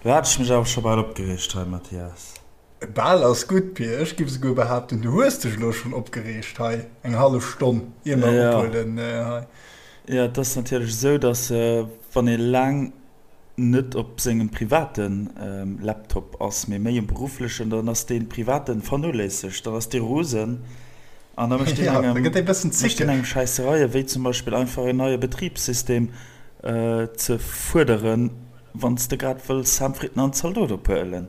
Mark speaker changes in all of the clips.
Speaker 1: Lo hat ech mech awer scho bal opgereegt hei, Mathias.
Speaker 2: Bal ass gutt, Pir. Ech giff esouguer behaapten, du hues dech elo schonn opgereegt hei eng hallef Stonn, ier mer ophuelen hei.
Speaker 1: Jo, et ass natierlech esou, datt wann ee laang net op sengem private Laptop ass, mee méi um berufflechen, dann ass dee privaten vernoléissegt, dann ass dee rosen an da mécht deen engem, mécht deen engem Schäissereien, wéi zum Beispill einfach en neie Betribssystem ze fuerderen, wann s de grad wëlls Sam Fritten an Zaldot ophuelen.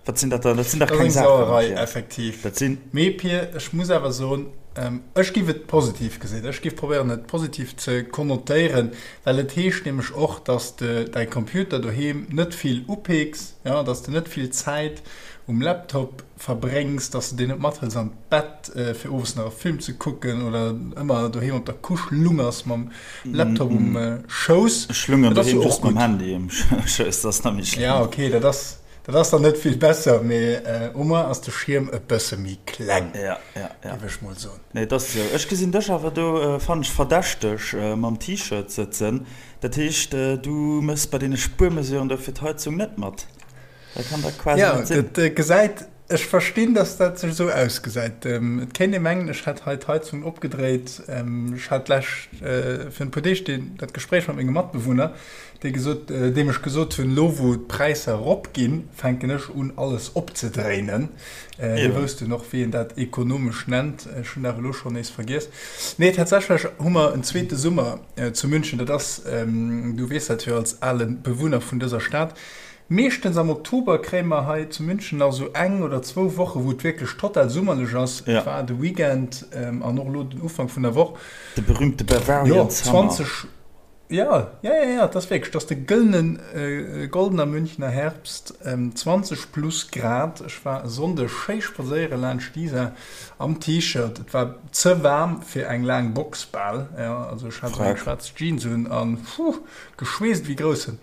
Speaker 1: Wat sinn dat dann? Dat sinn dach keng Saachen.
Speaker 2: Dat ass eng Sauerei, effektiv. Dat sinn. Mee Pir, ech muss awer soen, ech giff et positiv gesinn. Ech giff probéieren, et positiv ze konnotéieren, well et heescht nämlech och, dass de däi Computer doheem net vill upeeks, jo, dass de net vill Zäit um Laptop verbréngs, dass de deen net mathëls an d'Bett, fir owes nach e Film ze kucken oder ëmmer doheem op der Couche lungers mam Laptop um Schouss.
Speaker 1: Ech lungeren doheem just mam Handy um Schouss, dat ass nach méi
Speaker 2: schlëmm. Ja, okay, dat ass. Dat ass dann net vill besser, mee au moins ass de Schierm e bësse méi kleng, géif ech mol soen.
Speaker 1: Nee, et ass esou. Ech gesinn dech awer do, fannen ech verdächteg, mam T-Shirt sëtzen. Dat heescht, du méchs bei deene Spuermesuren do fir d'Heizung net mat? Dat kann dach quasi net
Speaker 2: sinn. Jo, dat gesäit, ech verstinn, dass dat sech esou ausgesäit. Et kéint ee mengen, ech hätt hei d'Heizung opgedréit. Ech hat d'lescht, virun e puer Deeg, dat Gespréich mat menge Matbewunner, Dee gesot, deem ech gesot hunn, elo wou d'Präisser eropginn, fänken ech un alles opzedréinen. Hie wousst dunn och wéi een dat ekonomesch nennt. Ech hunn awer elo schonn nees vergiess. Nee, tatsächlech hu mer en zweete Summer zu München. Dat ass, du weess dat jo als ale Bewunner vun dëser Stad, meeschtens am Oktober kréie mer hei zu München nach esou eng oder zwou Woche wou et wierklech total summerlech ass. Et war de Weekend an och elo den Ufank vun der Woch.
Speaker 1: De berühmte Bavarian Summer. Jo, 20.
Speaker 2: Ja, ja, ja, ja, et ass wierklech, et ass de gëllenen, goldener Münchner Herbst, 20 plus Grad. Ech war e Sonndeg schéi spadséiere laanscht d'Isar am T-Shirt. Et war ze waarm fir eng laang Box bal, ja, also ech hat esou eng schwaarz Jeans un an puh, geschweesst ewéi Groussen.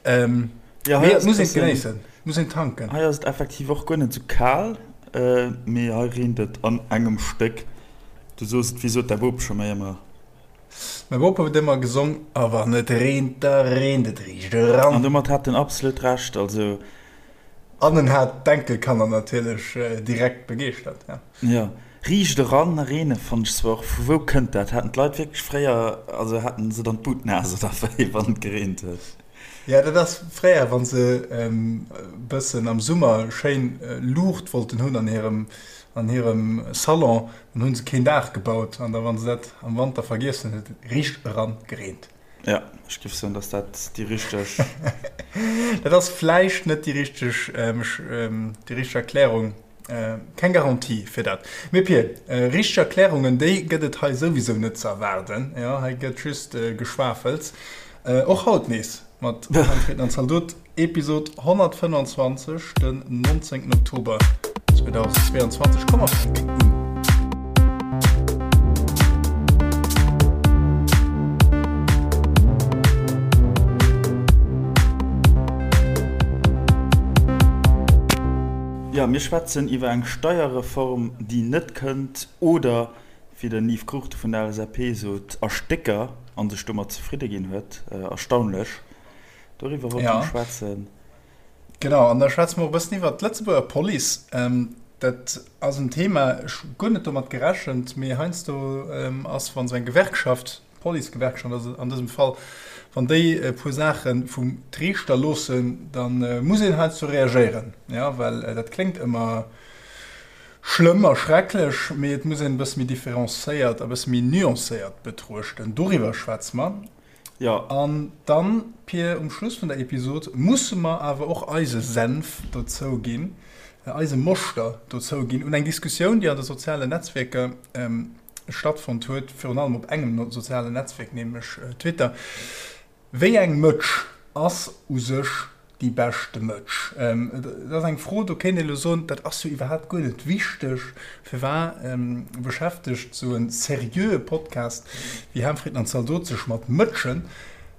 Speaker 2: Mee et muss een et genéissen, et muss een tanken.
Speaker 1: Hei ass et effektiv och guer net esou kal, mee hei reent et an engem Stéck. Du soos et, wéi sot däi Bop scho méi ëmmer?
Speaker 2: Mäi Bop huet ëmmer gesong, A wann et reent, da reent et riicht eran.
Speaker 1: An domat hat en absolut Recht, also.
Speaker 2: An en hat d'Enkelkanner natierlech direkt begeeschtert,
Speaker 1: ja. Jo, riicht eran reene fannt ech zwar och. Vu wou kënnt dat? Haten d'Leit wierklech fréier, also haten se dann d'Bud naass oder wéi, wann et gereent huet?
Speaker 2: Jo, dat ass fréier, wa se e bëssen am Summer schéin Luucht wollten hunn an hirem, an hirem Salon, Dann hunn se keen Daach gebaut an da wann se dat am Wanter vergiess hunn, huet et riicht eran gereent.
Speaker 1: Ja, ech géif soen, dass dat déi richteg.
Speaker 2: Dat ass vläicht net déi richteg, déi richteg Erklärung, keng Garantie fir dat. Mee Pir, richteg Erklärungen, déi gëtt et hei souwisou net ze erwaarden. Jo, hei gëtt just geschwafels. Och haut nees mat Manfred an Zaldot. Episod 125, den 19. Oktober 2022. Komm mer fänken un.
Speaker 1: Jo, mir schwätzen iwwer eng Steierreform, déi net kënnt oder, wéi den Yves Cruchten vun der LSAP sot, a Stécker a sech domat zefridde ginn huet. Erstaunlech. Doriwwer wollte mer schwätzen.
Speaker 2: Genau, an da schwätze mer och e bëssen iwwert d'Lëtzebuerger Police. Dat ass en Thema, ech hu guer net domat gerechent, mee heiansdo ass, wa sou eng Gewerkschaft, d'Policegewerkschaft ass et an dësem Fall, wann déi e puer Saache vum Triichter loossen, da muss een heiansdo reagéieren, jo, well dat kléngt ëmmer schlëmm a schrecklech, mee et muss een e bësse méi differencéiert a bësse méi nuancéiert betruechten. Doriwwer schwätze mer.
Speaker 1: Jo.
Speaker 2: An dann, Pir, um Schluss vun der Episod musse mer awer och eise Senf dozou ginn, eise Moschter dozou ginn un eng Diskussioun, déi an de sozialen Netzwierker stattfonnt huet, virun allem op engem sozialen Netzwierk, nämlech Twitter. Wéi eng Mëtsch ass u sech déi beschte Mëtsch? Et ass eng Fro, do kéint een elo soen, dat ass jo iwwerhaapt guer net wichteg. Firwat beschäftegt esou e seriöe Podcast wéi Ham, Fritten an Zaldot sech mat Mëtschen?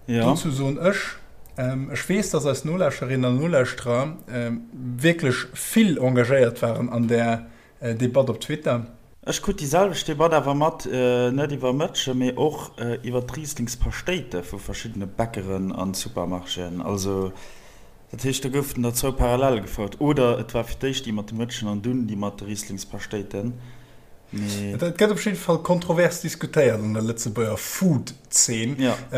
Speaker 2: Dozou soen ech, ech weess, dass eis Nolauschterinnen an Nolauschterer wierklech vill engagéiert waren an där Debatt op Twitter.
Speaker 1: Ech krut déi selwecht Debatt awer mat, net iwwer Mëtschen, mee och iwwer d'Rieslingspaschtéite vu verschiddene Bäckeren an Supermarchéen. Also. Dat heescht, do goufen der zwou parallel gefouert, oder et war fir d'éischt déi mat de Mëtschen an dunn déi mat de Rieslingspaschtéiten,
Speaker 2: mee. Et gëtt op jidde Fall kontrovers diskutéiert an der Lëtzebuerger Food-Zeen.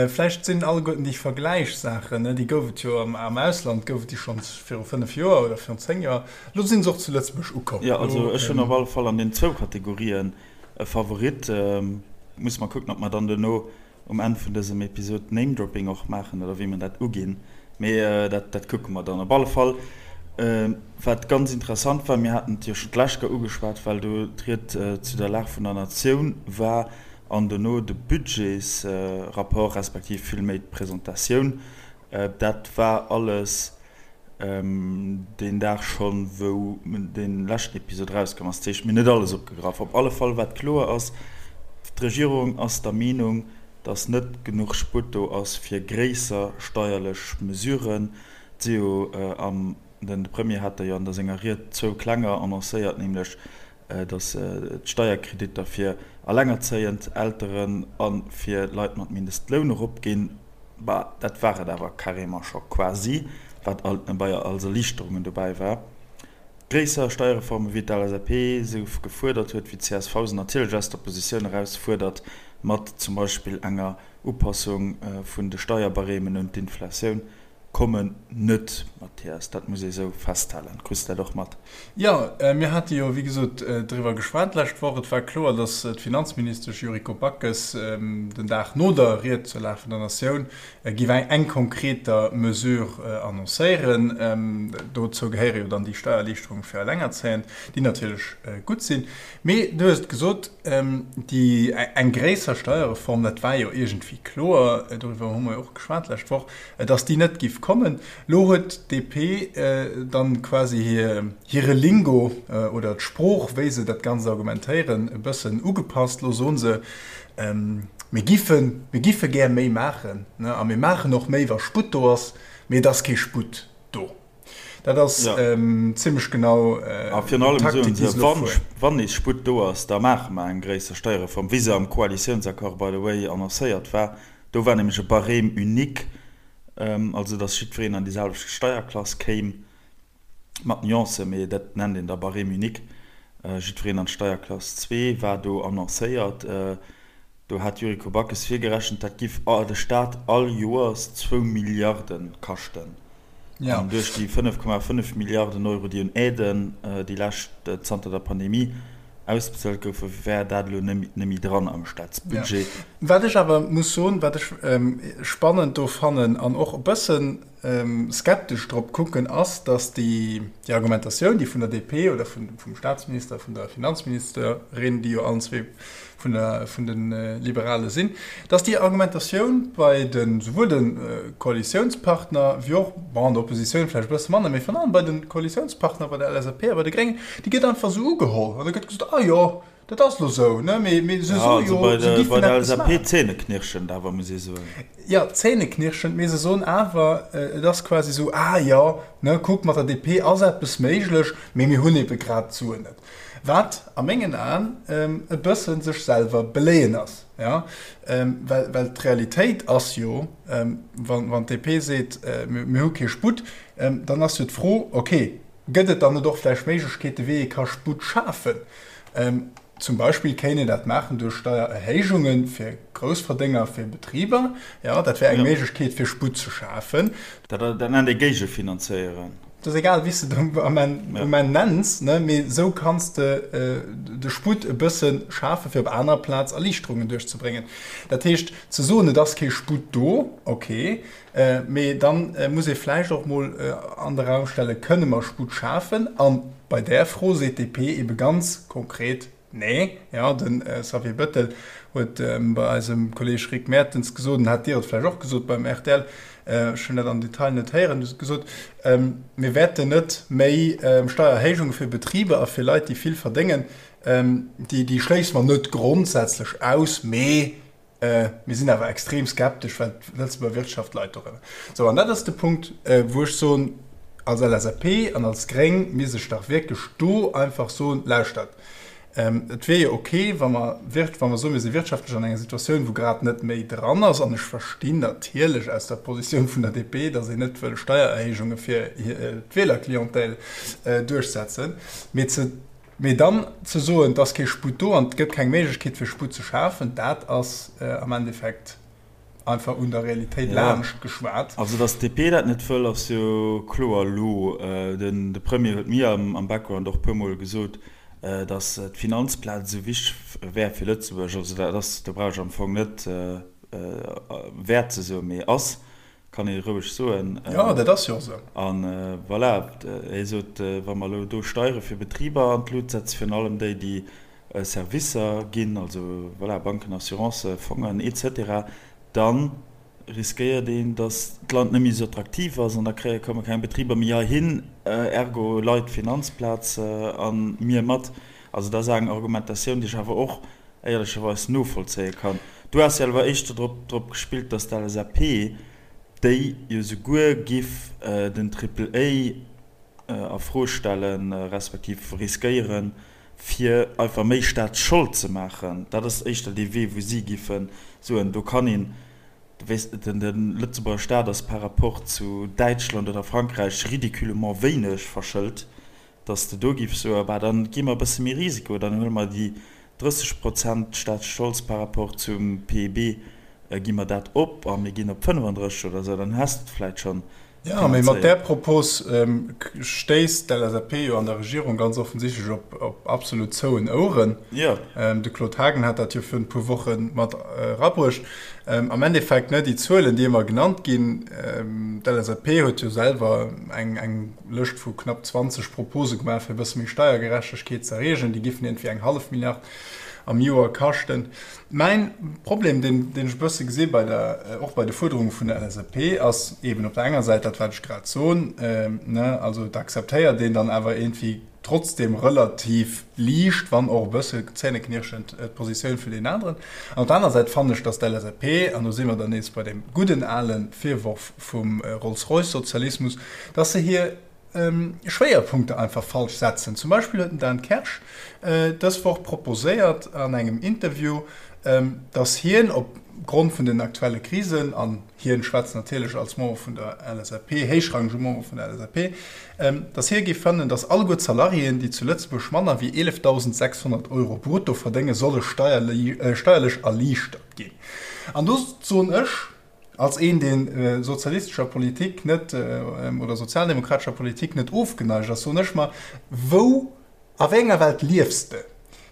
Speaker 2: Vläicht sinn alleguerten déi Vergläichssaachen, déi gouf et jo am Ausland, gouf et déi schonns viru 5 Joer oder virun 10 Joer, elo si se och zu Lëtzebuerg ukomm.
Speaker 1: Jo, also ech hunn op alle Fall an den zwou Kategorien e Favorit. Musse mer kucken, ob mer dann duerno um Enn vun dësem Episod Name-Dropping och maachen oder wéi mer dat uginn, mee dat dat kucke mer dann. Op alle Fall, wat ganz interessant war, mir haten et jo schonn d'lescht Kéier ugeschwat, well do d'Ried zu der Lag vun der Natioun war an dono de Budgetsrapport respektiv villméi d'Presentatioun, dat war alles deen Dag schonn, wou dee leschten Episod erauskomm ass. Dat heescht, mir hunn net alles opgegraff. Op alle Fall, wat kloer ass, D'Regierung ass der Meenung, datt net genuch Sputt do ass fir gréisser steierlech Mesuren. Et si jo am, den Premier hat der jo an der senger Ried zwou klenger annoncéiert, nämlech datt d'Steierkreditter fir allengerzéiend Elteren a fir Leit mat Mindestloun eropginn. Bah, dat war et awer carrément scho quasi, wat alt bei als Erliichterungen dobäi war. Gréisser Steierreforme wéi d'LSAP se gefuerdert huet, wéi d'CSV se natierlech aus der Oppositioun eraus fuerdert, mat zum Beispill enger Upassung vun de Steierbarêmen un d'Inflatioun, kommen net, Mathias, dat muss ee sou festhalen. Kriss de dat och mat?
Speaker 2: Jo, mir hate jo, wéi gesot, driwwer geschwat d'lescht Woch. Et war kloer, datt d'Finanzministesch Yuriko Backes den Dag no der Ried zur Lag vun der Natioun géif eng konkreter Mesure annoncéieren. Dozou gehéiere jo dann déi Steiererliichterunge fir Allengerzéiend, déi natierlech gutt sinn. Mee du hues et gesot, déi eng gréisser Steierreform, dat war jo iergendwéi kloer, doriwwer hu mer jo och geschwat d'lescht Woch, dass déi net giff kommen. Lo huet d'DP dann quasi hire Lingo oder d'Sprooch, wéi se dat Ganzt argumentéieren, e bëssen ugepasst. Lo soen se, mir giffen, mir giffe gär méi maachen a mir maachen och méi, wa Sputt do ass, mee et ass kee Sputt do. Dat ass zimmlech genau
Speaker 1: d'Taktik, déi se elo fueren. Wann nees Sputt do ass, da maache mer eng gréisser Steierreform, wéi se am Koalitiounsaccord, by the way, annoncéiert war. Do war nämlech e Barème unique, also datt jiddwereen an déi selwecht Steierklass kéim, mat Nuancen, mee dat nennt een da Barème unique. Jiddwereen an d'Steierklass zwee war do annoncéiert. Do hat d'Yuriko Backes virgerechent, dat giff de Staat all Joers zwou Milliarde kaschten. An duerch déi 5,5 Milliarden Euro, déi un Aiden déi lescht zanter der Pandemie ausbezuelt goufen, wär dat elo net méi dran am Staatsbudget.
Speaker 2: Wat ech awer muss soen, wat ech spannend do fannen an och e bësse skeptesch drop kucken, ass, datt déi Argumentatioun, déi vun der DP oder vum Staatsminister, vun der Finanzministerin, déi jo allen zwee vun der, vun de Liberale sinn, dass déi Argumentatioun bei de souwuel de Koalitiounspartner wéi och, bon, an der Oppositioun vläicht e bësse manner, mee virun allem bei de Koalitiounspartner, bei der LSAP a bei de Gréngen, déi gëtt einfach esou ugeholl an da gëtt gesot, ah jo, dat ass elo esou, ne, mee, mee se soe jo, se
Speaker 1: giffen eppes maachen. Bei der LSAP zähneknirschend awer, muss ee soen.
Speaker 2: Jo, zähneknirschend, mee se soen awer, et ass quasi esou, ah jo, ne, kuck, mat der DP ass eppes méiglech, mee mir hunn ebe grad d'Suen net. Wat a mengen Aen e bësse sech selwer beléien ass, jo, well, well d'Realitéit ass jo, wann, wann d'DP seet, mir hu kee Sputt, dann ass jo d'Fro, okay, gëtt et dann net och vläicht Méiglechkeete wéi ee ka Sputt schafen? Zum Beispill kéint een dat maachen duerch Steiererhéijunge fir Groussverdénger, fir Betriber, jo, dat wär eng Méiglechkeet fir Sputt ze schafen.
Speaker 1: Dat nennt ee Géigefinanzéieren.
Speaker 2: Et ass egal, wéi s de et um Enn nenns, mee esou kanns de de Sputt e bësse schafen, fir op anerer Plaz Erliichterungen duerchzebréngen. Dat heescht, ze soen, et ass kee Sputt do, okay, mee da muss ee vläicht och mol an de Raum stellen, Kënne mer Sputt schafen? A bei där Fro seet d'DP ebe ganz konkret, Nee, jo, de Xavier Bettel huet bei eisem Kolleeg Rick Mertens gesot, an hat Dir et vläicht och gesot beim rtl, ech hunn dat am Detail net héieren, huet gesot, mir wäerten net méi Steiererhéijunge fir Betriber a fir Leit, déi vill verdéngen, déi schléisse mer net grondsätzlech aus, mee Mir sinn awer extrem skeptesch, well d'Lëtzebuerger Wirtschaft leit dorënner. Sou, an dat ass de Punkt, wou ech soen, als LSAP an als Gréng misst ech dach wierklech do einfach soen, Lauschtert, Et wier jo ok, wa mer, wa mer soen, mir si wirtschaftlech an enger Situatioun, wou grad net méi dran ass, an ech verstinn natierlech aus der Positioun vun der DP, datt een net wëll Steiererhéijunge fir d'Wielerclientèle duerchsetzen, mee ze, mee dann ze soen, et ass kee Sputt do an et gëtt keng Méiglechkeet fir Sputt ze schafen, dat ass am Endeffekt einfach un der Realitéit laanscht geschwat.
Speaker 1: Also datt d'DP dat net wëll, ass jo kloer elo. Den de Premier huet mir am Background och e puermol gesot, datt d'Finanzplaz esou wichteg wär fir Lëtzebuerg. Also dat ass, do brauch ech am Fong net wäert ze soen, mee ass, kann ee roueg soen.
Speaker 2: Jo, dat ass jo och esou.
Speaker 1: A voilà, hie sot, wa mer elo do Steiere fir Betriber an d'Lut setzen, virun allem déi, déi Servicer ginn, also voilà, Banken, Assurancen, Fongen et cetera, da riskéiert een, datt d'Land net méi esou attraktiv ass an da kréie komme keng Betriber méi heihin, ergo leit d'Finanzplaz a mir mat. Also dat ass eng Argumentatioun, déi ech awer och éierlecherweis novollzéie kann. Du has jo awer éischter drop drop gespillt, datt d'LSAP, déi jo souguer giff den Triple A a Fro stellen, respektiv riskéieren, fir einfach méi Staatsschold ze maachen, dat ass éischter dee Wee, wou si giffe soen, do kann een, weess de, de Lëtzebuerger Staat ass par rapport zu Däitschland oder Frankräich ridiculement wéineg verschëlt, datt s de do giffs soen, bah dann gi mer e bësse méi Risiko, dann huele mer déi 30 Prozent Staatsscholds par rapport zum PIB, gi mer dat op a mir ginn op 35 oder esou, dann häss de et vläicht schonn
Speaker 2: Jo, mee mat där Propos stéisst d'LSAP jo an der Regierung ganz offensichtlech op absolut zouen Oueren. De Claude Haagen hat dat jo virun e puer Woche mat erabruecht. Am Endeffekt, ne, déi Zuelen, déi ëmmer genannt ginn, d'LSAP huet jo selwer eng Lëscht vu knapp 20 Propose gemaach, fir e bësse méi Steiergerechtegkeet ze erreegen. Déi giffen iergendwéi eng hallef Milliard am Joer kaschten. Mäin Problem, deen ech e bësse gesi bei der, och bei de Fuerderunge vun der LSAP, ass eeben op der enger Säit dat, wat ech grad soen, ne, also et akzeptéiert een dann awer iergendwéi trotzdem relativ liicht, wann och e bësse zähneknirschend, d'Positioun vun deenen aneren. An op der anerer Säit fannen ech, dass d'LSAP, an do si mer dann nees bei deem gudden ale Virworf vum Rolls-Royce-Sozialismus, dass se hir Schwéierpunkter einfach falsch setzen. Zum Beispill huet den Dan Kersch dës Woch proposéiert an engem Interview, datt hien op Grond vun den aktuelle Krisen, an hien schwätzt natierlech als Member vun der LSAP, héichrangege Member vun der LSAP, datt hie géif fannen, datt alleguer d'Salariéen, déi zu Lëtzebuerg manner wéi 11.600 Euro brutto verdéngen, solle steierlech erliichtert ginn. An do soen ech, Als een, dee sozialistescher Politik net oder sozialdemokratescher Politik net ofgeneigt ass, soen ech mer, Wou, a wéi enger Welt liefs de?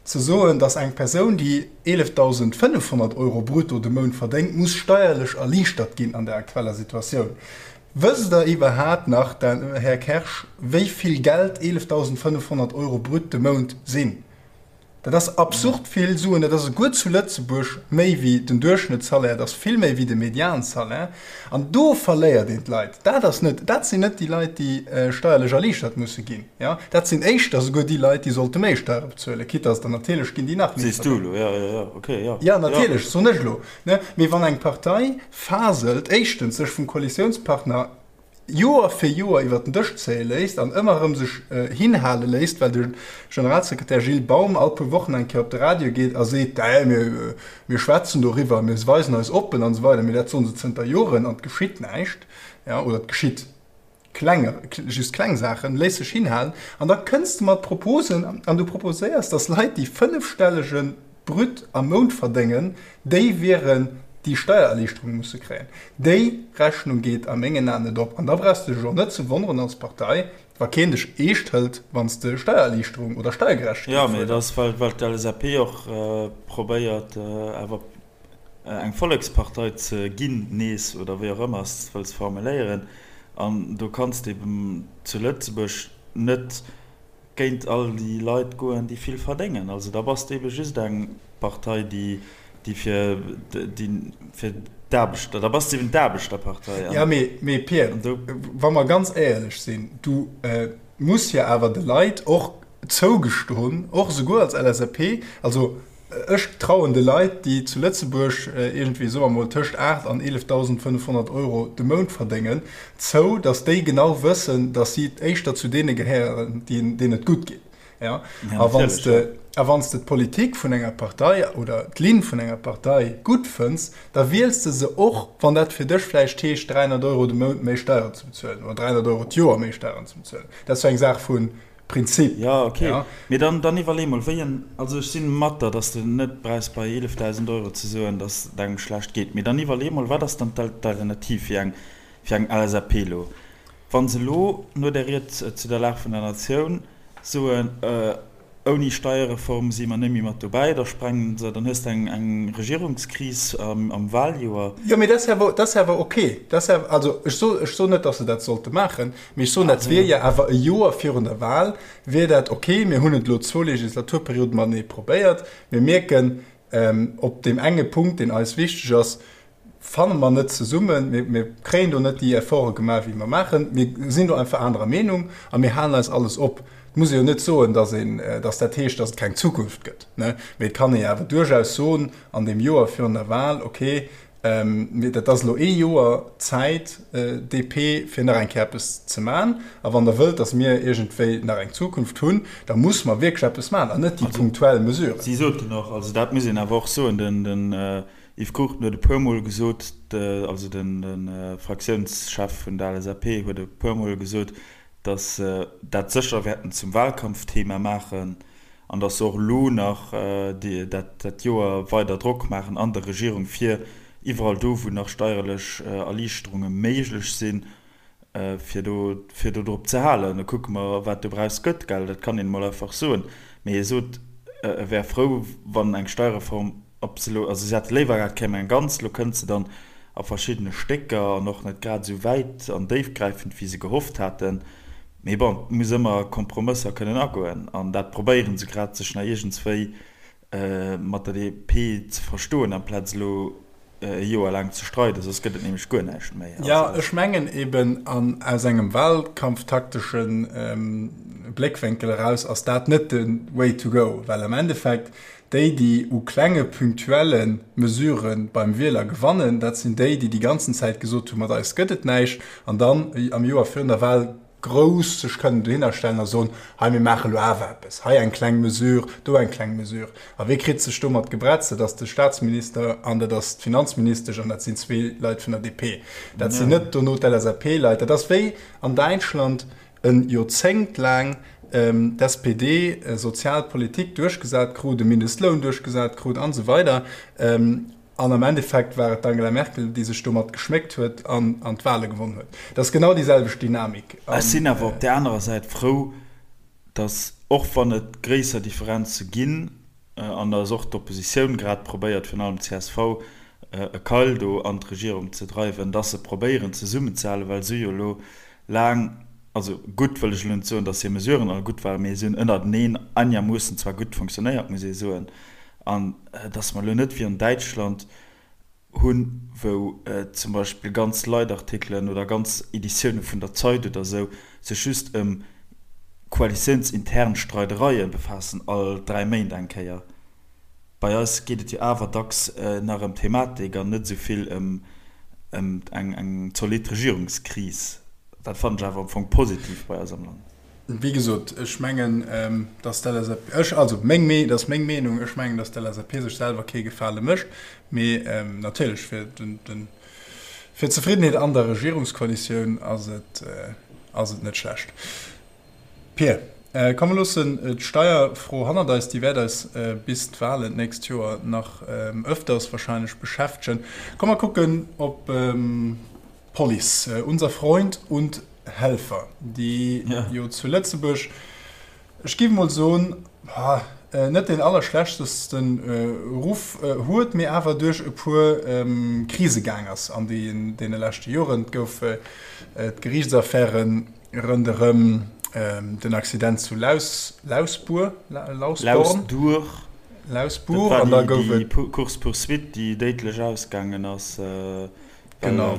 Speaker 2: Ze soen, datt eng Persoun, déi 11.500 Euro brutto de Mount verdéngt, muss steierlech erliichtert ginn an der aktueller Situatioun. Wësst Der iwwerhaapt nach, Här Kersch, wéi vill Geld 11.500 Euro brut de Mount sinn? Dat ass absurd vill Suen. Dat ass esouguer zu Lëtzebuerg méi wéi den Duerchschnëttssalaire, dat ass vill méi wéi de Mediansalaire. An do verléiert een d'Leit. Dat ass net, dat sinn net déi Leit, déi steierlech erliichtert musse ginn. Jo, dat sinn éischter esouguer déi Leit, déi sollte méi Steiere bezuelen, quitte dass der natierlech ginn, déi nach méi
Speaker 1: Sees du elo, jo, jo, jo, okay, jo.
Speaker 2: Jo, natierlech, soen ech elo. Ne? Mee wann eng Partei faselt, éischtens sech vum Koalitiounspartner Joer fir Joer iwwer den Dësch zéie léisst an ëmmer erëm sech hinhale léisst, well de Generalsekretär Gilles Baum all puer Wochen eng Kéier op de Radio geet a seet, Dä, mir, mir schwätzen doriwwer, mir weisen eis oppen an esou weider, mee dat soen se zënter Joren an et geschitt näischt, ja, oder et geschitt kleng, just kleng Saachen, léisst sech hinhalen an da kënns de mat Proposen an du proposéiers, datt Leit, déi fënnefstellege Brut am Mount verdéngen, déi wieren déi Steiererliichterung musse kréien. Déi Rechnung geet a mengen Aen net op. An da brauchs de dech och net ze wonneren als Partei, wa keen dech eescht hëlt, wann s de Steiererliichterung oder Steiergerechtegkeet
Speaker 1: Jo, mee dat ass, well d'LSAP och probéiert, awer eng Vollekspartei ze ginn nees, oder wéi och ëmmer s de et wëlls formuléieren. An do kanns de eben zu Lëtzebuerg net géint all déi Leit goen, déi vill verdéngen. Also da bass de ebe just eng Partei, déi, déi fir, déi fir d'Aarbechter, da bass de eben d'Aarbechterpartei.
Speaker 2: Jo, mee, mee Pir, wa mer ganz éierlech sinn, du muss jo awer de Leit och zougestoen, och esouguer als LSAP, also Ech trauen de Leit, déi zu Lëtzebuerg iergendwéi, soe mer mol, tëscht 8 an 11.500 Euro de Mount verdéngen, zou, datt déi genau wëssen, datt si éischter zu deene gehéieren, deenen et gutt geet. Ja? A wann s de, a wann s de d'Politik vun enger Partei oder d'Linn vun enger Partei gutt fënns, da wiels de se och, wann dat fir dech vläicht heescht, 300 Euro de Mount méi Steieren ze bezuelen oder 300 Euro d'Joer méi Steieren ze bezuelen. Dat ass jo eng Saach vu Prinzip.
Speaker 1: Jo, ok. Mee dann, dann iwwerlee mol, wéi en, also ech si mat der, datt s de net brauchs bei 11.000 Euro ze soen, datt et engem schlecht geet. Mee dann iwwerlee mol, wat ass dann d'Alternativ fir eng, fir eng LSAP elo? Wa se elo no där Ried zu der Lag vun der Natioun soen, ouni Steierreform si mer net méi mat dobäi, da sprengen se, dann hues de eng Regierungskris am Wahljoer.
Speaker 2: Jo, mee dat ass awer ok. Also ech soen net, datt se dat sollte maachen, mee ech soen, dat wier jo awer e Joer virun der Wahl wier dat ok. Mir hunn et elo zwou Legislaturperioden matenee probéiert. Mir mierken, op deem enge Punkt, deen eis wichteg ass, fanne mer net zesummen, mir kréien do net déi Efforte gemaach, wéi mer maachen, mir sinn do einfach anerer Meenung a mir halen eis alles op. Et muss ee jo net soen, dass een, dass dat heescht, dass et keng Zukunft gëtt, ne? Mee et kann ee jo awer duerchaus soen an deem Joer virun der Wahl, okay, mir, dat ass elo ee Joer Zäit, DP, fir nach eng Kéier eppes ze man. A wann Der wëllt, dass mir iergendwéi nach eng Zukunft hunn, da muss mer wierklech eppes man an net déi punktuell Mesuren.
Speaker 1: Si soten och, also dat muss een awer och soen, den Yves Cruchten huet e puer Mol gesot, also de Fraktiounschef vun der LSAP huet e puer Mol gesot, datt se dat sécher wäerten zum Wahlkampfthema maachen an datt se och elo nach dat Joer weider Drock maachen an der Regierung, fir iwwerall do, wou nach steierlech Erliichterunge méiglech sinn, fir do, fir do drop ze halen. Da kucke mer, wat dobraus gëtt, gell. Dat kann een emol einfach soen. Mee hie sot, e wär frou, wann eng Steierreform, ob se elo, also si hätte léiwer gehat, et kéim eng ganz, elo kënnt se dann a verschiddene Stécker an och net grad esou wäit an déifgräifend, wéi se gehofft haten. Mee bon, et muss ëmmer Kompromësser kënnen agoen an dat probéiere se grad, sech nach iergendswéi mat der DP ze verstoen, amplaz elo e Joer laang ze streiden, soss gëtt et nämlech guer näischt méi.
Speaker 2: Jo, ech mengen eben, an aus engem wahlkampftaktesche Bléckwénkel eraus ass dat net de Way to go, well am Endeffekt déi, déi u klenge punktuelle Mesurë beim Wieler gewannen, dat sinn déi, déi déi ganzen Zäit gesot hunn, mat eis gëtt et näischt, an dann am Joer virun der Wahl grouss sech kënnen dohinner stellen a soen, hei mir maache lo awer eppes, hei eng kleng Mesure, do eng kleng Mesure. A wee kritt sech domat gebretzt? Dat ass de Statsminister an dat ass d'Finanzministesch an dat sinn zwee Leit vun der DP. Dat sinn net dono d'LSAP-Leit. Dat ass wéi an Däitschland e Joerzéngt laang d'SPD sozial Politik duerchgesat krut, e Mindestloun duerchgesat krut an esou weider. An am Endeffekt war et d'Angela Merkel, déi sech domat geschméckt huet an d'Wale gewonn huet. Dat ass genau déi selwecht Dynamik.
Speaker 1: Ech sinn awer op där anerer Säit frou, datt, och wann et gréisser Differenze ginn, an datt och d'Oppositioun grad probéiert, virun allem d'CSV, e Keil do an d'Regierung ze dreiwen, datt se probéieren zesummenzehalen, well se hu jo elo laang, also gutt wëll ech elo net soen, datt hir Mesuren all gutt waren, mee se hunn ënnerteneen einermoossen zwar gutt fonctionnéiert, muss ee soen. An dass mer elo net wéi an Däitschland hunn, wou zum Beispill ganz Leitartikelen oder ganz Editioune vun der Zeit oder esou sech just ëm koalitiounsintern Streidereie befaassen, all 3 Méint eng Kéier. Bei eis geet et jo awer dacks nach ëm Thematik an net esou vill ëm eng zolidd Regierungskris. Dat fannen ech awer am Fong positiv bei eis am Land.
Speaker 2: Wéi gesot, ech mengen, datt d'LSAP, ech, also meng Mee, dat ass meng Meenung, ech mengen, datt d'LSAP sech selwer kee Gefale mécht, mee natierlech fir den, den, fir d'Zefriddenheet an der Regierungskoalitioun ass et, ass et net schlecht. Pir, komm mer loossen d'Steierfro hannert eis, déi wäert eis bis d'Wahlen d'nächst Joer nach öfters wahrscheinlech beschäftegen. Komm mer kucken op D'Police, unser Freund und Helfer, déi jo zu Lëtzebuerg, ech géif emol soen, net deen allerschlechtesten Ruff huet, mee awer duerch e puer Krise gaang ass an deene leschte Joren. Et gouf d'Geriichtsaffäre ronderëm den Accident zu Lausbuer,
Speaker 1: Lausduer,
Speaker 2: Lausbuer, an da gouf
Speaker 1: et déi Course-poursuite, déi déidlech ausgaangen ass. Genau.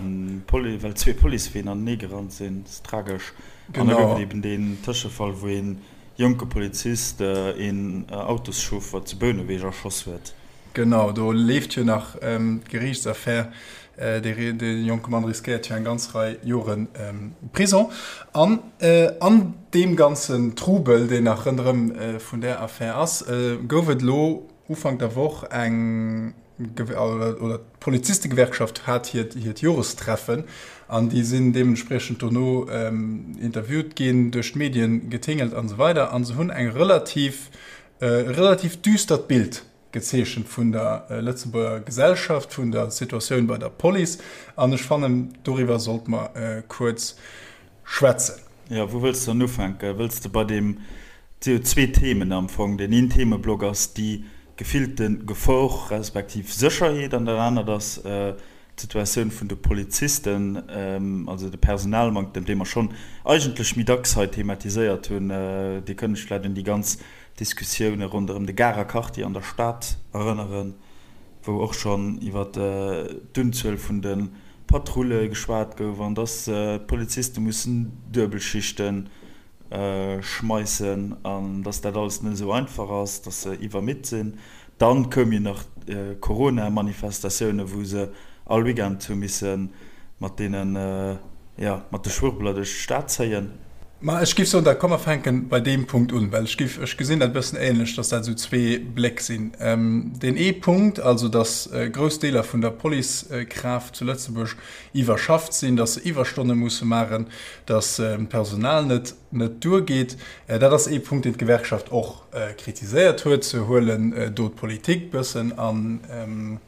Speaker 1: Well zwee Policeween anenee gerannt sinn. Dat ass tragesch. An da gouf et eben deen Tëschefall, wou ee jonke Polizist een Autoschauffer zu Bouneweg erschoss huet.
Speaker 2: Genau, do leeft jo nach d'Geriichtsaffär. Dee jonke Mann riskéiert jo eng ganz Rei Jore Prison. An an deem ganzen Trubel, deen nach ronderëm vun där Affär ass, gouf et elo Ufank der Woch eng, oder d'Polizistegewerkschaft hat hiert Jorestreffen an déi sinn deementspriechend dono interviewt ginn, duerch d'Medien getingelt an esou weider. A se hunn eng relativ, e relativ düstert Bild gezeechent vun der Lëtzebuerger Gesellschaft, vun der Situatioun bei der Police. An ech fannen, doriwwer sollte mer kuerz schwätzen.
Speaker 1: Jo, wou wëlls de dann ufänken? Wëlls de bei deem, et si jo zwee Themen am Fong, deen een Themeblock ass déi gefillte Gefor respektiv Sécherheet an dat anert ass d'Situatioun vun de Polizisten, also de Personalmanktem, dee mer schonn eigentlech méi dacks hei thematiséiert hunn. Dir kënnt lech vläicht un déi ganz Diskussioune ronderëm de Garer Quartier an der Stad erënneren, wou och schonn iwwer d'Unzuel vun de Patrulle geschwat gouf an dass d'Poliziste mussen Duebelschichte schmeissen an dass dat alles net esou einfach ass, dass se iwwermidd sinn. Dann koum jo nach d'Corona-Manifestatioune wou se all Weekend hu misse mat deenen, jo, mat de Schwurbler duerch d'Stad zéien.
Speaker 2: Ma ech giff soen, da komm mer fänken bei deem Punkt un, well ech giff, ech gesinn dat e bëssen ähnlech, dass dat esou zwee Bléck sinn. Deen ee Punkt, also dass grouss Deeler vun der Policekraaft zu Lëtzebuerg iwwerschafft sinn, dass se Iwwerstonne musse maachen, dass d'Personal net net duergeet, dat ass ee Punkt, deen d'Gewerkschaft och kritiséiert huet. Se huelen do d'Politik bëssen an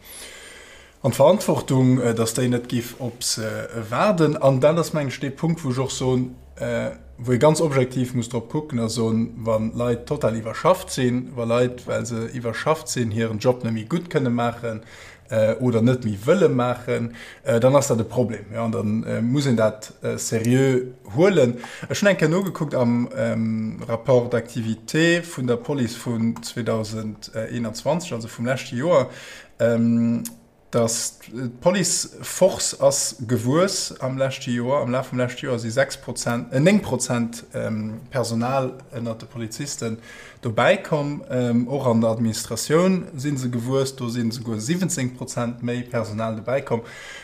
Speaker 2: An d'Verantwortung, datt déi net géif op se waarden. An dat ass, mengen ech, dee Punkt, wou ech och soen, wou ee ganz objektiv muss drop kucken a soen, wa Leit total iwwerschafft sinn, wa Leit, well se iwwerschafft sinn, hiren Job net méi gutt kënne maachen oder net méi wëlle maachen, dann ass dat e Problem. Jo, an da muss een dat seriö huelen. Ech hunn eng Kéier nogekuckt am Rapport d'activité vun der Police vun 2021, also vum leschte Joer, Dass d'Police Force ass gewuess am leschte Joer. Am Laf vum leschte Joer si 6 Prozent, 9 Prozent Personal ënnert de Polizisten dobäi komm. Och an der Administratioun si se gewuess, do si souguer 17 Prozent méi Personal dobäi komm.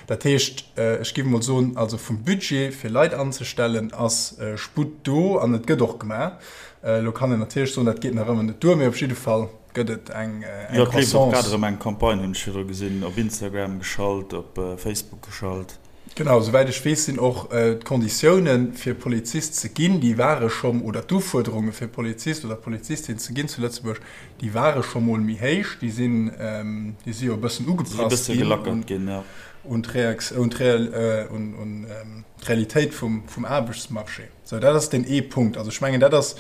Speaker 2: Dat heescht, ech géif emol soen, also vum Budget fir Leit anzestellen ass Sputt do an et gëtt och gemaach. Elo kann een natierlech soen, dat geet nach ëmmer net duer, mee op jidde Fall Gëtt et eng
Speaker 1: Croissance? Jo, et leeft och grad erëm eng Campagne, hunn ech virdru gesinn, op Instagram geschalt, op Facebook geschalt.
Speaker 2: Genau, souwäit ech weess, sinn och d'Konditiounen, fir Polizist ze ginn, déi ware scho, oder d'Ufuerderunge fir Polizist oder Polizistin ze ginn zu Lëtzebuerg, déi ware scho mol méi héich. Déi sinn, déi si jo e bëssen ugepasst ginn un d'Realitéit vum Aarbechtsmarché. Sou, dat ass deen ee Punkt. Also ech mengen, dat ass,